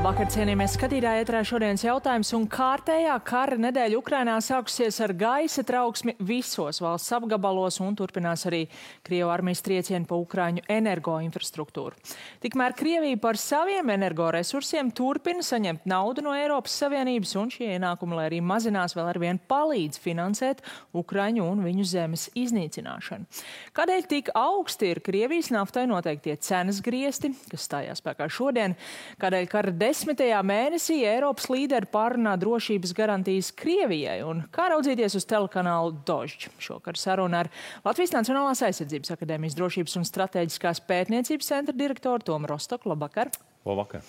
Labvakar, cienījamies skatītāji, ēterā šodienas jautājums un kārtējā kara nedēļa Ukrainā sākusies ar gaisa trauksmi visos valsts apgabalos un turpinās arī Krievu armijas triecieni pa Ukraiņu energoinfrastruktūru. Tikmēr Krievija par saviem energoresursiem turpina saņemt naudu no Eiropas Savienības un šie ienākumi, lai arī mazinās, vēl arvien palīdz finansēt Ukraiņu un viņu zemes iznīcināšanu. Kādēļ tik augsti ir Krievijas naftai noteiktie cenas griesti, kas stājās spēkā šodien? Kādēļ kara 10. mēnesī Eiropas līderi pārunā drošības garantijas Krievijai un kā raudzīties uz telekanālu Dožģ. Šokar saruna ar Latvijas Nacionālās aizsardzības akadēmijas drošības un stratēģiskās pētniecības centra direktoru Tomu Rostoku. Labvakar! Labvakar.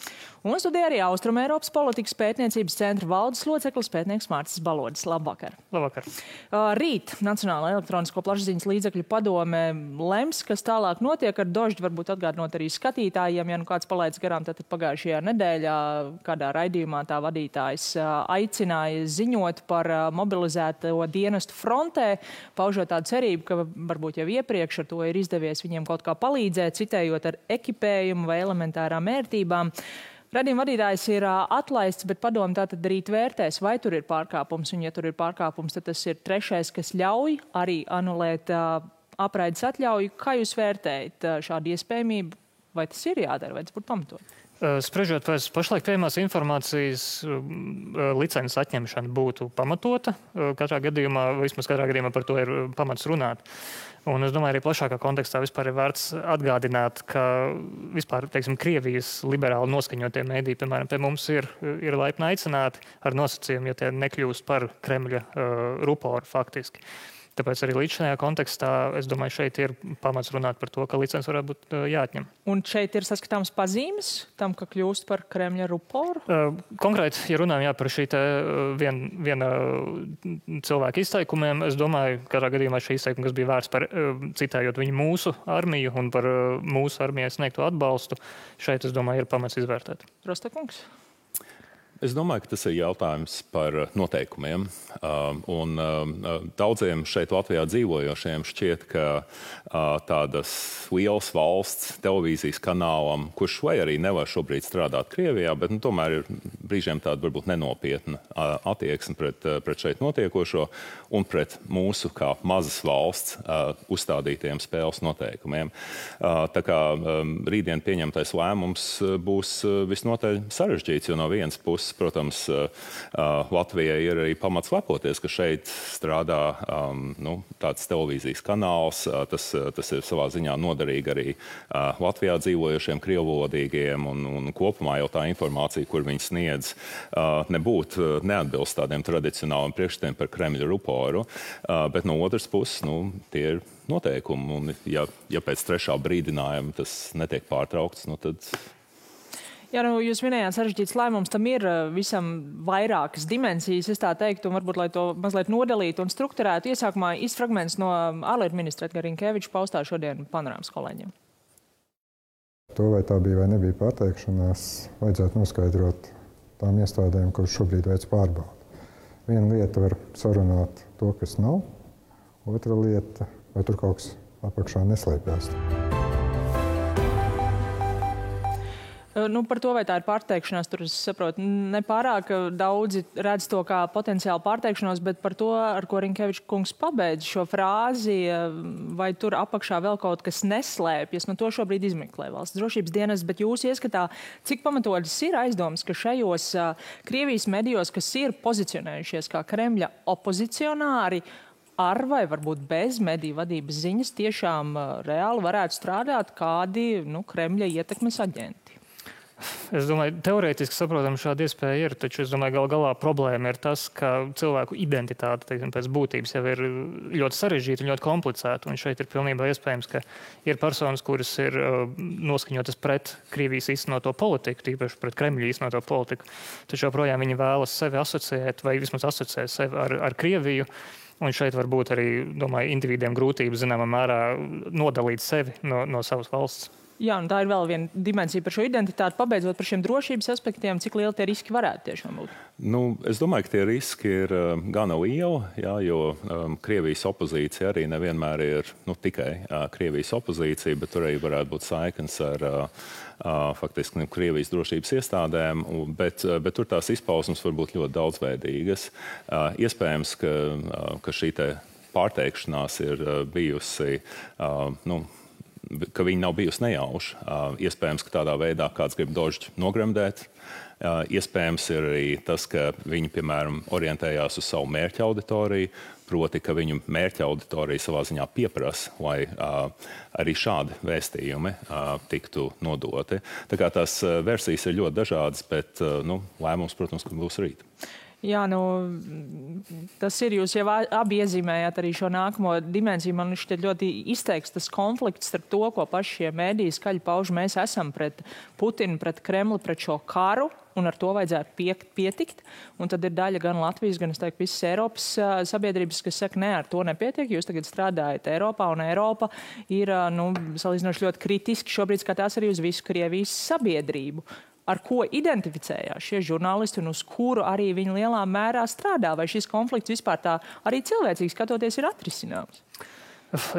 Un studijā arī Austrumeiropas politikas pētniecības centra valdes loceklis pētnieks Mārcis Balodis. Labvakar! Labvakar! Rīt Nacionālā elektronisko plašsaziņas līdzekļu padome lems, kas tālāk notiek ar Dožģi, varbūt atgādinot arī skatītājiem, ja nu kāds palaids garām, tad pagājušajā nedēļā kādā raidījumā tā vadītājs aicināja ziņot par mobilizēto dienestu frontē, paužot tādu cerību, ka varbūt jau iepriekš ar to ir izdevies viņiem kaut kā palīdzēt, citējot ar ekipējumu vai elementārām ērtībām. Radījuma vadītājs ir atlaists, bet padomu tātad rīt vērtēs, vai tur ir pārkāpums. Un, ja tur ir pārkāpums, tad tas ir trešais, kas ļauj arī anulēt apraides atļauju. Kā jūs vērtējat šādu iespējamību? Vai tas ir jādara, vai tas būtu pamatot? Spriežot pēc pašlaik pieejamās informācijas, licences atņemšana būtu pamatota. Katrā gadījumā, vismaz katrā gadījumā par to ir pamats runāt. Un es domāju, arī plašākā kontekstā vispār ir vērts atgādināt, ka vispār, teiksim, Krievijas liberāli noskaņotie mēdī, piemēram, pie mums ir laipni aicināti ar nosacījumu, ja tie nekļūst par Kremļa ruporu faktiski. Tāpēc arī līdz šajā kontekstā, es domāju, šeit ir pamats runāt par to, ka licences varētu būt jāatņem. Un šeit ir saskatāms pazīmes tam, ka kļūst par Kremļa ruporu? Konkrēti, ja runājam par šī te viena cilvēka izteikumiem, es domāju, katrā gadījumā šī izteikuma, kas bija vērts par citējot viņu mūsu armiju un par mūsu armijai sniegto atbalstu, šeit, es domāju, ir pamats izvērtēt. Rostokungs? Es domāju, ka tas ir jautājums par noteikumiem. Daudziem šeit Latvijā dzīvojošiem šķiet, ka tādas lielas valsts televīzijas kanālam, kurš vai arī nevar šobrīd strādāt Krievijā, bet tomēr ir brīžiem tāda varbūt nenopietna attieksme pret šeit notiekošo un pret mūsu kā mazas valsts uzstādītiem spēles noteikumiem. Tā kā rītdien pieņemtais lēmums būs visnotaļ sarežģīts, jo no vienas puses, protams, Latvijai ir arī pamats lepoties, ka šeit strādā tāds televīzijas kanāls. Tas ir savā ziņā noderīgi arī Latvijā dzīvojošiem krievvalodīgiem un kopumā jau tā informācija, kur viņi sniedz, nebūtu neatbilst tādiem tradicionāliem priekšstatiem par Kremļa ruporu, bet no otras puses, tie ir noteikumi, un ja pēc trešā brīdinājuma tas netiek pārtraukts, tad... Jā, jūs minējāt sarežģīts lēmums, tam ir visam vairākas dimensijas, es tā teiktu, un varbūt, lai to mazliet nodalītu un strukturētu, iesākumā fragments no ārlietu ministra Edgara Rinkeviča paustā šodien Panorāmas kolēģiem. To, vai tā bija vai nebija pateikšanās, vajadzētu noskaidrot tām iestādēm, kuras šobrīd veic pārbaudi. Viena lieta var sarunāt to, kas nav, otra lieta, vai tur kaut kas apakšā neslēpjas. Par to, vai tā ir pārteikšanās, tur es saprotu, nepārāk daudzi redz to kā potenciāli pārteikšanos, bet par to, ar ko Rinkeviča kungs pabeidz šo frāzi, vai tur apakšā vēl kaut kas neslēpjas, to šobrīd izmeklē valsts drošības dienas, bet jūs ieskatā, cik pamatotas ir aizdomas, ka šajos Krievijas medijos, kas ir pozicionējušies kā Kremļa opozicionāri, ar vai varbūt bez mediju vadības ziņas tiešām reāli varētu strādāt kādi Kremļa ietekmes aģenti? Es domāju, teorētiski saprotam šāda iespēja ir, taču es domāju, galā problēma ir tas, ka cilvēku identitāte, teiksim, pēc būtības jau ir ļoti sarežģīta un ļoti komplicēta. Un šeit ir pilnībā iespējams, ka ir personas, kuras ir noskaņotas pret Krievijas īstenoto politiku, tīpaši pret Kremļa īstenoto politiku. Taču joprojām viņi vēlas sevi asociēt vai vismaz asociēt sevi ar Krieviju. Un šeit var būt arī, domāju, individiem grūtības zināmā mērā nodalīt sevi no savas valsts. Jā, un tā ir vēl viena dimensija par šo identitāti. Pabeidzot par šiem drošības aspektiem, cik lieli tie riski varētu tiešām būt? Es domāju, ka tie riski ir gana lieli, jā, jo Krievijas opozīcija arī nevienmēr ir tikai Krievijas opozīcija, bet tur arī varētu būt saiknes ar faktiski Krievijas drošības iestādēm, bet tur tās izpausmes var būt ļoti daudzveidīgas. Iespējams, ka šī te pārteikšanās ir bijusi, ka viņi nav bijusi nejauša. Iespējams, ka tādā veidā kāds grib Dožģi nogremdēt. Iespējams ir arī tas, ka viņi, piemēram, orientējās uz savu mērķa auditoriju, proti, ka viņu mērķa auditorija savā ziņā pieprasa, lai arī šādi vēstījumi tiktu nodoti. Tā kā tās versijas ir ļoti dažādas, bet lēmums, protams, ka būs rīt. Jā, tas ir, jūs jau abi iezīmējāt arī šo nākamo dimensiju. Man šķiet ļoti izteikts tas konflikts starp to, ko paši šie mēdīji skaļi pauž. Mēs esam pret Putinu, pret Kremli, pret šo karu, un ar to vajadzētu pietikt. Un tad ir daļa gan Latvijas, gan, es teiktu, visas Eiropas sabiedrības, kas saka, ne, ar to nepietiek. Jūs tagad strādājat Eiropā, un Eiropa ir, salīdzinoši ļoti kritiski šobrīd skatās arī uz visu Krievijas sabiedrību. Ar ko identificējās šie žurnālisti un uz kuru arī viņi lielā mērā strādā? Vai šis konflikts vispār tā arī cilvēcīgi skatoties ir atrisināms?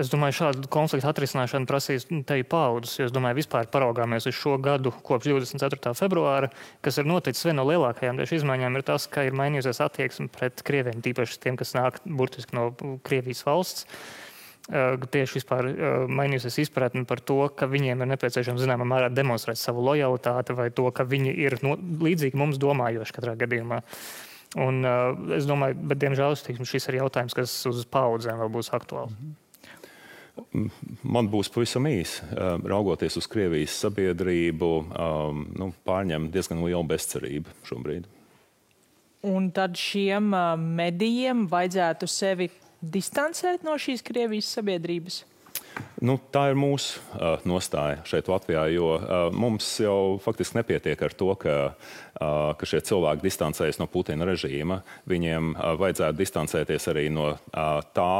Es domāju, šādu konfliktu atrisināšanu prasīs te paudzes, jo es domāju, vispār paraugāmies uz šo gadu kopš 24. februāra, kas ir noticis viena no lielākajām tieši izmaiņām, ir tas, ka ir mainījusies attieksme pret Krieviem, tīpaši tiem, kas nāk burtiski no Krievijas valsts. Tieši vispār mainījusies izpratni par to, ka viņiem ir nepieciešams zināmā mērā demonstrēt savu lojalitāti vai to, ka viņi ir līdzīgi mums domājoši katrā gadījumā. Un es domāju, bet diemžēl šis ir jautājums, kas uz paudzēm vēl būs aktuāls. Man būs pavisam īsi. Raugoties uz Krievijas sabiedrību, pārņem diezgan liela bezcerība šobrīd. Un tad šiem medijiem vajadzētu sevi distancēt no šīs Krievijas sabiedrības? Tā ir mūsu nostāja šeit Latvijā, jo mums jau faktiski nepietiek ar to, ka šie cilvēki distancējas no Putina režīma. Viņiem vajadzētu distancēties arī no tā,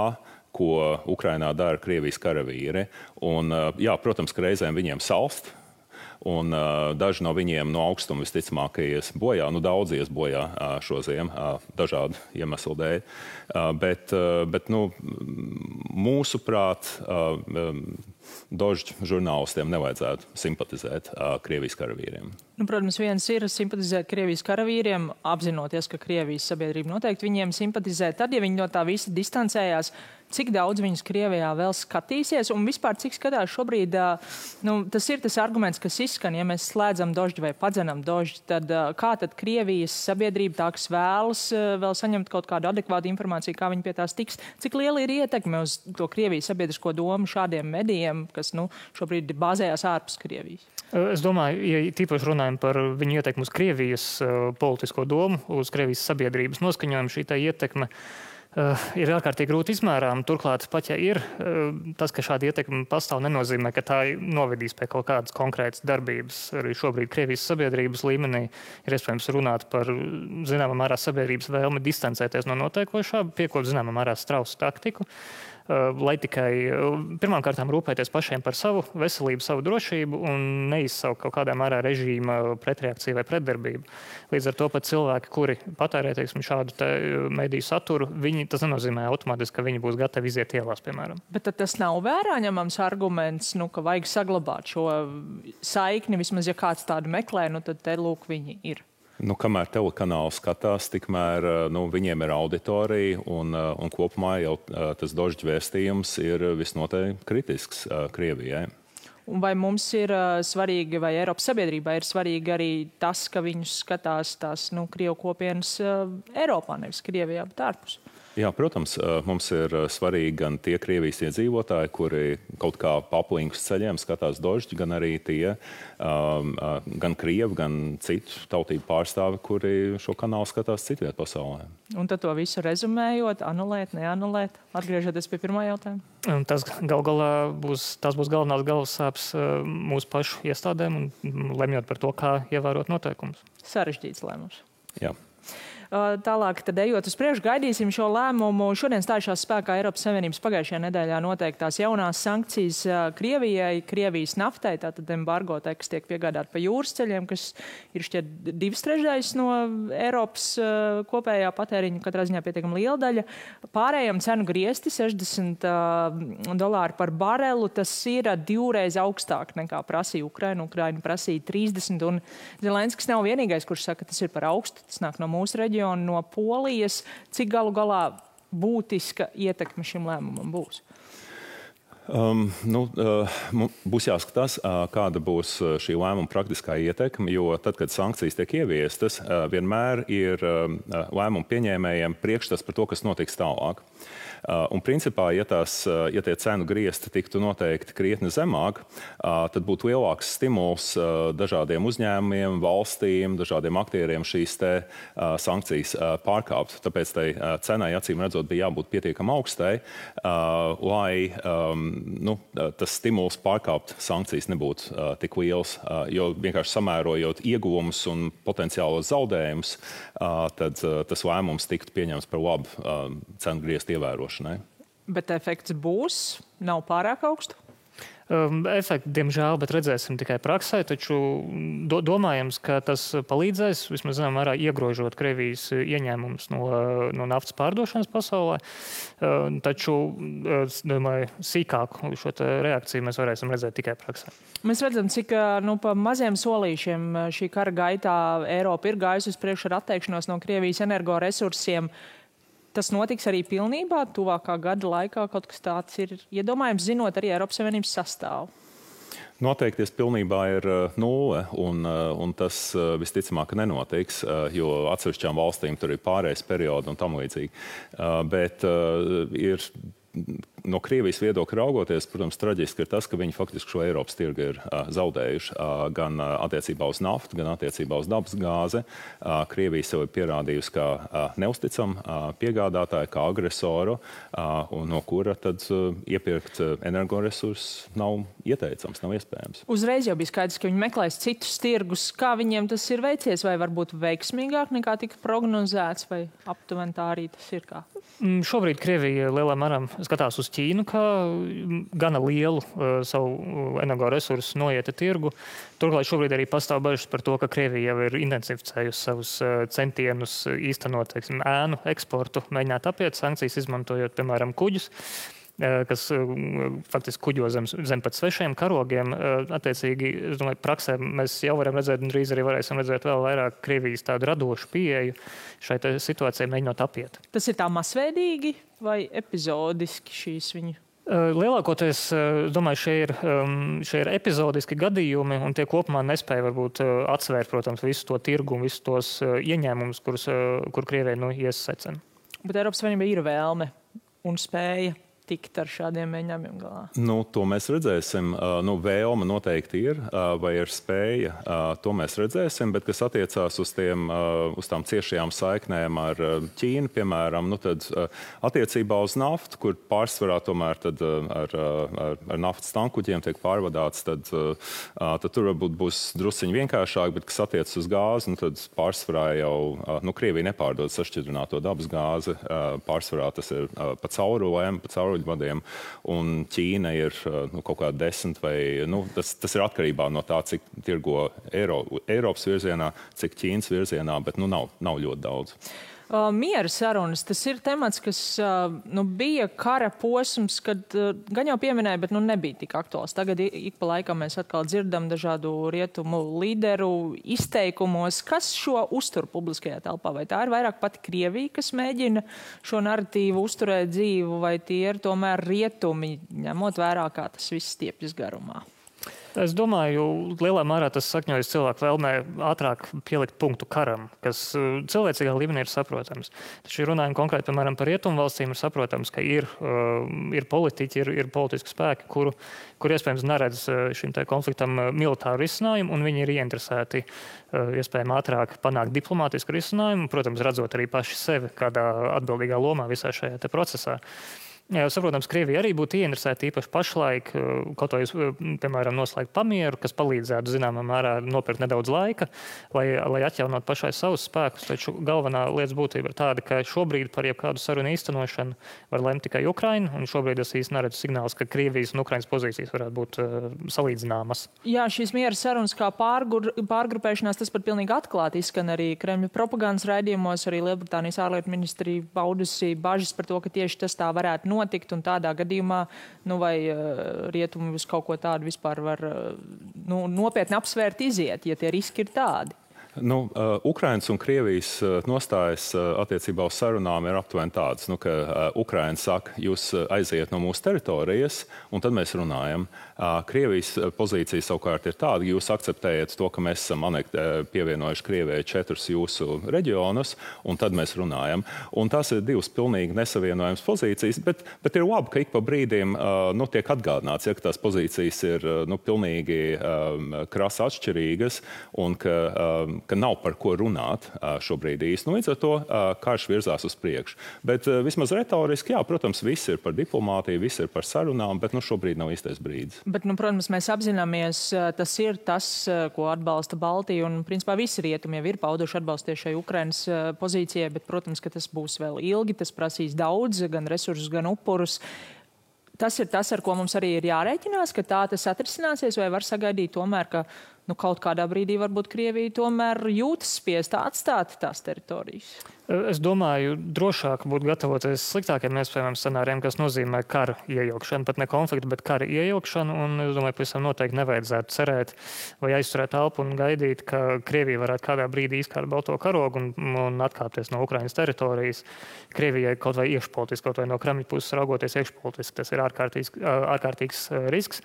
ko Ukrainā dara Krievijas karavīri. Un, jā, protams, ka reizēm viņiem salst. Un daži no viņiem no augstuma visticamāk ies bojā, daudz ies bojā šo ziemu, dažādu iemeslu dēļ. Bet mūsuprāt, Dožģi žurnālistiem nevajadzētu simpatizēt Krievijas karavīriem. Protams, viens ir simpatizēt Krievijas karavīriem, apzinoties, ka Krievijas sabiedrība noteikti viņiem simpatizē. Tad, ja viņi no tā visa distancējās, cik daudz viņus Krievijā vēl skatīsies un vispār cik skatās šobrīd, tas ir tas arguments, kas izskan, ja mēs slēdzam Dožģi vai padzenam Dožģi, tad kā tad Krievijas sabiedrība tā, kas vēlas vēl saņemt kaut kādu adekvātu informāciju, kā viņi pie tās tiks, cik liela ir ietekme uz to Krievijas sabiedrisko domu šādiem medijiem, kas šobrīd bāzējās ārpus Krievijas? Es domāju, ja tīpaši runājam par viņu ietekmi uz Krievijas politisko domu, uz Krievijas sabiedrības noskaņojumu, šī tā ietekme ir ārkārtīgi grūti izmērām. Turklāt, pat ja ir tas, ka šāda ietekme pastāv, nenozīmē, ka tā novedīs pie kaut kādas konkrētas darbības. Arī šobrīd Krievijas sabiedrības līmenī ir iespējams runāt par zināmā mērā sabiedrības vēlmi distancēties no notiekošā, piekopot zināmā mērā strausu taktiku, lai tikai pirmkārtām rūpēties pašiem par savu veselību, savu drošību un neizsaukt kaut kādā mērā režīma pretreakciju vai pretdarbību. Līdz ar to pat cilvēki, kuri patērē, šādu mediju saturu, tas nenozīmē automātiski, ka viņi būs gatavi iziet ielās, piemēram. Bet tad tas nav vērā ņemams arguments, ka vajag saglabāt šo saikni, vismaz ja kāds tādu meklē, tad te lūk viņi ir. Kamēr telekanāls skatās, tikmēr viņiem ir auditorija un kopumā jau tas Dožģi vēstījums ir visnotaļ kritisks Krievijai. Un vai mums ir svarīgi, vai Eiropas sabiedrībā ir svarīgi arī tas, ka viņus skatās tās Krievu kopienas Eiropā, nevis Krievijā, bet ārpus? Jā, protams, mums ir svarīgi gan tie Krievijas iedzīvotāji, kuri kaut kā pa aplinkus ceļiem skatās Dožģi, gan arī tie gan Krievi, gan citu tautību pārstāvi, kuri šo kanālu skatās citviet pasaulē. Un tad to visu rezumējot, anulēt, neanulēt, atgriežoties pie pirmā jautājuma? Tas būs galvenās galvassāpes mūsu pašu iestādēm un lemjot par to, kā ievērot noteikumus. Sarežģīts lēmums. Jā. Tālāk, tad ejot uz priekšu, gaidīsim šo lēmumu. Šodien stājušās spēkā Eiropas Savienības pagājušajā nedēļā noteiktās jaunās sankcijas Krievijai, Krievijas naftai, tātad embargo kas tiek piegādāt pa jūras ceļiem, kas ir šķiet 2/3 no Eiropas kopējā patēriņa, katrā ziņā pietiekami liela daļa. Pārējiem cenu griesti $60 par barelu, tas ir 2 reizes augstāk nekā prasīja Ukraina. Ukraina prasīja 30, un Zelenskis nav vienīgais, kurš saka, ka tas ir par augstu. Tas nāk no mūsu reģiona, no Polijas. Cik galu galā būtiska ietekme šim lēmumam būs? Būs jāskatās, kāda būs šī lēmuma praktiskā ietekme, jo tad, kad sankcijas tiek ieviestas, vienmēr ir lēmumu pieņēmējiem priekšstats par to, kas notiks tālāk. Un principā, ja tie cenu griezti tiktu noteikti krietni zemāk, tad būtu lielāks stimuls dažādiem uzņēmumiem, valstīm, dažādiem aktieriem šīs sankcijas pārkāpt. Tāpēc tai cenai, acīm redzot, bija jābūt pietiekami augstai, lai tas stimuls pārkāpt sankcijas nebūtu tik liels, jo vienkārši samērojot ieguvumus un potenciālos zaudējumus, tad tas lēmums tiktu pieņemts par labu cenu grieztu ievērošanai. Bet efekts būs? Nav pārāk augstu? Efekti, diemžēl, bet redzēsim tikai praksē, taču domājams, ka tas palīdzēs, vismaz zinām, mērā iegrožot Krievijas ieņēmumus no naftas pārdošanas pasaulē. Taču, domāju, sīkāku šo reakciju mēs varēsim redzēt tikai praksē. Mēs redzam, cik pa maziem solīšiem šī kara gaitā Eiropa ir gājusi uz priekšu ar atteikšanos no Krievijas energoresursiem. Tas notiks arī pilnībā, tuvākā gada laikā kaut kas tāds ir iedomājams, zinot arī Eiropas Savienības sastāvu? Noteikties pilnībā ir 0, un tas visticamāk nenotiks, jo atsevišķām valstīm tur ir pārējais periods un tam līdzīgi. Bet ir no Krievijas viedokļa raugoties, protams, traģiski ir tas, ka viņi faktiski šo Eiropas tirgu ir zaudējuši gan attiecībā uz naftu, gan attiecībā uz dabas gāzi. Krievija sev ir pierādījusi kā neusticam piegādātāju, kā agresoru, un no kura tad iepirkt energoresursus nav ieteicams, nav iespējams. Uzreiz jau bija skaidrs, ka viņi meklēs citus tirgus. Kā viņiem tas ir veicies, vai varbūt veiksmīgāk nekā tika prognozēts, vai aptuveni tā arī tas ir kā? Šobrīd Krievija lielā mērā skatās uz Ķīnu kā gana lielu savu energoresursu noieta tirgu. Turklāt šobrīd arī pastāv bažas par to, ka Krievija jau ir intensificējusi savus centienus īstenot ēnu eksportu, mēģināt apiet sankcijas, izmantojot, piemēram, kuģus, kas faktiski kuģo zem pat svešiem karogiem. Attiecīgi, es domāju, praksē mēs jau varam redzēt, un drīz arī varēsim redzēt vēl vairāk Krievijas tādu radošu pieeju šai situācijai mēģinot apiet. Tas ir tā masveidīgi vai epizodiski šīs viņu? Lielākoties, domāju, šie ir epizodiski gadījumi, un tie kopumā nespēja varbūt atsvērt, protams, visu to tirgu un visus tos ieņēmumus, kur Krievija iesacena. Bet Eiropas Savienība ir vēlme un spēja tikt ar šādiem mēģinājumiem galā? To mēs redzēsim. Vēlme noteikti ir, vai ir spēja, to mēs redzēsim, bet kas attiecās uz tām ciešajām saiknēm ar Ķīnu, piemēram, tad attiecībā uz naftu, kur pārsvarā tomēr tad ar naftas tankuģiem tiek pārvadāts, tad tur varbūt būs drusciņi vienkāršāk, bet kas attiecas uz gāzi, tad pārsvarā jau Krievija nepārdod sašķidrināto dabas gāzi, pārsvarā tas ir pa caurulēm, vadiem, un Ķīna ir kaut kā 10 vai, tas ir atkarībā no tā, cik tirgo Eiropas virzienā, cik Ķīnas virzienā, bet nav ļoti daudz. Miera sarunas, tas ir temats, kas bija kara posms, kad gan jau pieminēja, bet nebija tik aktuāls. Tagad ik pa laikam mēs atkal dzirdam dažādu rietumu līderu izteikumos. Kas šo uztur publiskajā telpā? Vai tā ir vairāk pati Krievija, kas mēģina šo narratīvu uzturēt dzīvu, vai tie ir tomēr rietumi, ņemot vērā, kā tas viss stiepjas garumā? Es domāju, lielā mērā tas sakņojas cilvēku vēlmē ātrāk pielikt punktu karam, kas cilvēcīgā līmenī ir saprotams. Taču runājam konkrēti, piemēram, par rietumu valstīm, ir saprotams, ka ir politiķi, ir politiski spēki, kur iespējams neredz šim konfliktam militāru risinājumu, un viņi ir ieinteresēti iespējami ātrāk panākt diplomātisku risinājumu, protams, redzot arī paši sevi kādā atbildīgā lomā visā šajā procesā. Jā, saprotams, Krievija arī būtu ieinteresēta īpaši pašlaik, kaut vai, piemēram, noslēgt pamieru, kas palīdzētu zināmā mērā nopirkt nedaudz laika, lai atjaunot pašai savus spēkus. Taču galvenā lietas būtība ir tāda, ka šobrīd par jebkādu sarunu īstenošanu var lemt tikai Ukraina, un šobrīd es īsti neredzu signālus, ka Krievijas un Ukrainas pozīcijas varētu būt salīdzināmas. Jā, šīs miera sarunas kā pārgrupēšanās, tas pat pilnīgi atklāti izskan arī Kremļa propagandas raidījumos, arī Lielbritānijas ārlietu ministrija paudusi bažas par to, ka tieši tas tā varētu notikt, un tādā gadījumā, vai rietumi uz kaut ko tādu vispār var nopietni apsvērt iziet, ja tie riski ir tādi? Ukrainas un Krievijas nostājas attiecībā uz sarunām ir aptuveni tādas, ka Ukraina saka, jūs aiziet no mūsu teritorijas, un tad mēs runājam. Krievijas pozīcija savukārt ir tāda, ka jūs akceptējat to, ka mēs esam pievienojuši Krievijai 4 jūsu reģionus, un tad mēs runājam. Un tās ir divas pilnīgi nesavienojams pozīcijas, bet ir labi, ka ik pa brīdiem tiek atgādināts, ka tās pozīcijas ir pilnīgi krasi atšķirīgas, un ka nav par ko runāt šobrīd īsti. Līdz ar to karš virzās uz priekšu. Bet vismaz retoriski, jā, protams, viss ir par diplomātiju, viss ir par sarunām, bet šobrīd nav īstais brīdis. Bet, protams, mēs apzināmies, tas ir tas, ko atbalsta Baltija, un, principā, visi rietumi jau ir pauduši atbalstu šai Ukrainas pozīcijai, bet, protams, ka tas būs vēl ilgi, tas prasīs daudz, gan resursus, gan upurus. Tas ir tas, ar ko mums arī ir jārēķinās, ka tā tas atrisināsies, vai var sagaidīt tomēr, ka kaut kādā brīdī varbūt Krievija tomēr jūtas spiesta atstāt tās teritorijas? Es domāju, drošāk būtu gatavoties sliktākiem iespējamiem scenārijiem, kas nozīmē kara iejaukšanu, pat ne konfliktu, bet kara iejaukšanu, un es domāju, pavisam noteikti nevajadzētu cerēt vai aizturēt elpu un gaidīt, ka Krievija varētu kādā brīdī izkārt balto karogu un atkāpties no Ukrainas teritorijas. Krievijai kaut vai iekšpolitiski, kaut vai no Kremļa puses raugoties iekšpolitiski, tas ir ārkārtīgs risks.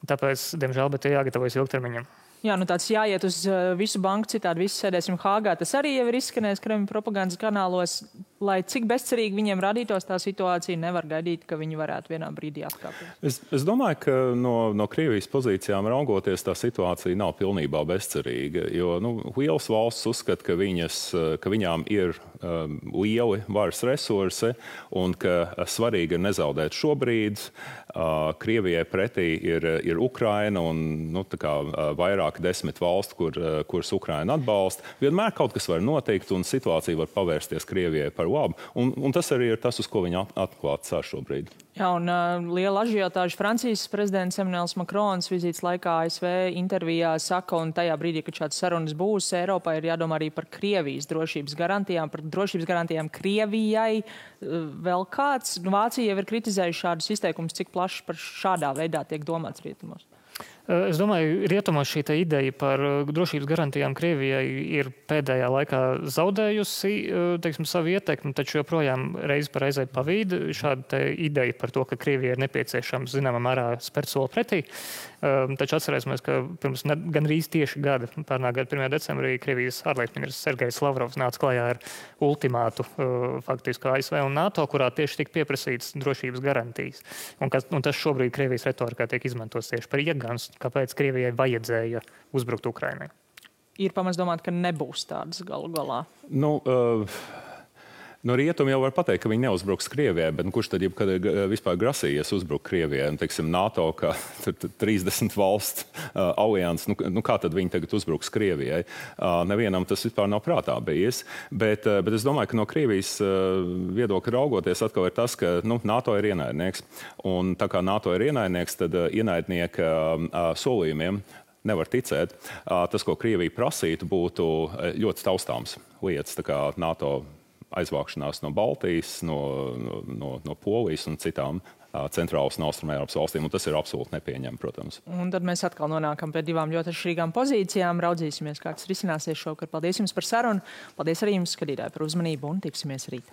Tāpēc, diemžēl, bet jāgatavojas ilgtermiņam. Jā, tāds jāiet uz visu banku, citādi visi sēdēsim Hāgā. Tas arī jau ir izskanējis Kremļa propagandas kanālos. Lai cik bezcerīgi viņiem radītos tā situācija, nevar gaidīt, ka viņi varētu vienā brīdī atkāpties. Es domāju, ka no Krievijas pozīcijām raugoties tā situācija nav pilnībā bezcerīga, jo lielas valsts uzskata, ka viņām ir lieli varas resursi un ka svarīgi ir nezaudēt šobrīd. Krievijai pretī ir Ukraina un vairāk 10 valstu, kuras Ukraina atbalsta. Vienmēr kaut kas var notikt un situācija var pavērsties Krievijai par labu. Un tas arī ir tas, uz ko viņi atklāt cer šobrīd. Jā, un liela ažiotāža Francijas prezidents Emmanuels Macrons vizītes laikā ASV intervijā saka, un tajā brīdī, kad šāds sarunas būs, Eiropā ir jādomā arī par Krievijas drošības garantijām, par drošības garantijām Krievijai. Vēl kāds? Vācija jau ir kritizējuši šādus izteikumus, cik plaši par šādā veidā tiek domāts rietumos. Es domāju, rietumos šī ideja par drošības garantijām Krievijai ir pēdējā laikā zaudējusi, savu ietekmi, taču joprojām reizi par reizei pavīd šāda ideja par to, ka Krievijai ir nepieciešams zināmā mērā spērt soli pretī. Taču atcerēsimies, ka pirms gandrīz tieši gada, pērnā gada 1. decembrī, Krievijas ārlietu ministrs Sergejs Lavrovs nāca klajā ar ultimātu faktiski ASV un NATO, kurā tieši tika pieprasīts drošības garantijas. Un tas šobrīd Krievijas retorikā tiek izmantots tieši par iegānstu, kāpēc Krievijai vajadzēja uzbrukt Ukrainai. Ir pamats domāt, ka nebūs tādas galu galā? No rietumi jau var pateikt, ka viņi neuzbruks Krievijai, bet kurš tad jebkad vispār grasījies uzbrukt Krievijai? NATO, kā 30 valsts alianses, kā tad viņi tagad uzbruks Krievijai? Nevienam tas vispār nav prātā bijis. Bet es domāju, ka no Krievijas viedokļa raugoties atkal ir tas, ka NATO ir ienaidnieks. Un tā kā NATO ir ienaidnieks, tad ienaidnieka solījumiem nevar ticēt. Tas, ko Krievija prasītu, būtu ļoti taustāms lietas, tā kā NATO aizvākšanās no Baltijas, no Polijas un citām centrālas un austrumēropas valstīm, un tas ir absolūti nepieņemami, protams. Un tad mēs atkal nonākam pie divām ļoti atšķirīgām pozīcijām. Raudzīsimies, kā tas risināsies šovakar. Paldies jums par sarunu. Paldies arī jums, skatītāji, par uzmanību, un tiksimies rīt.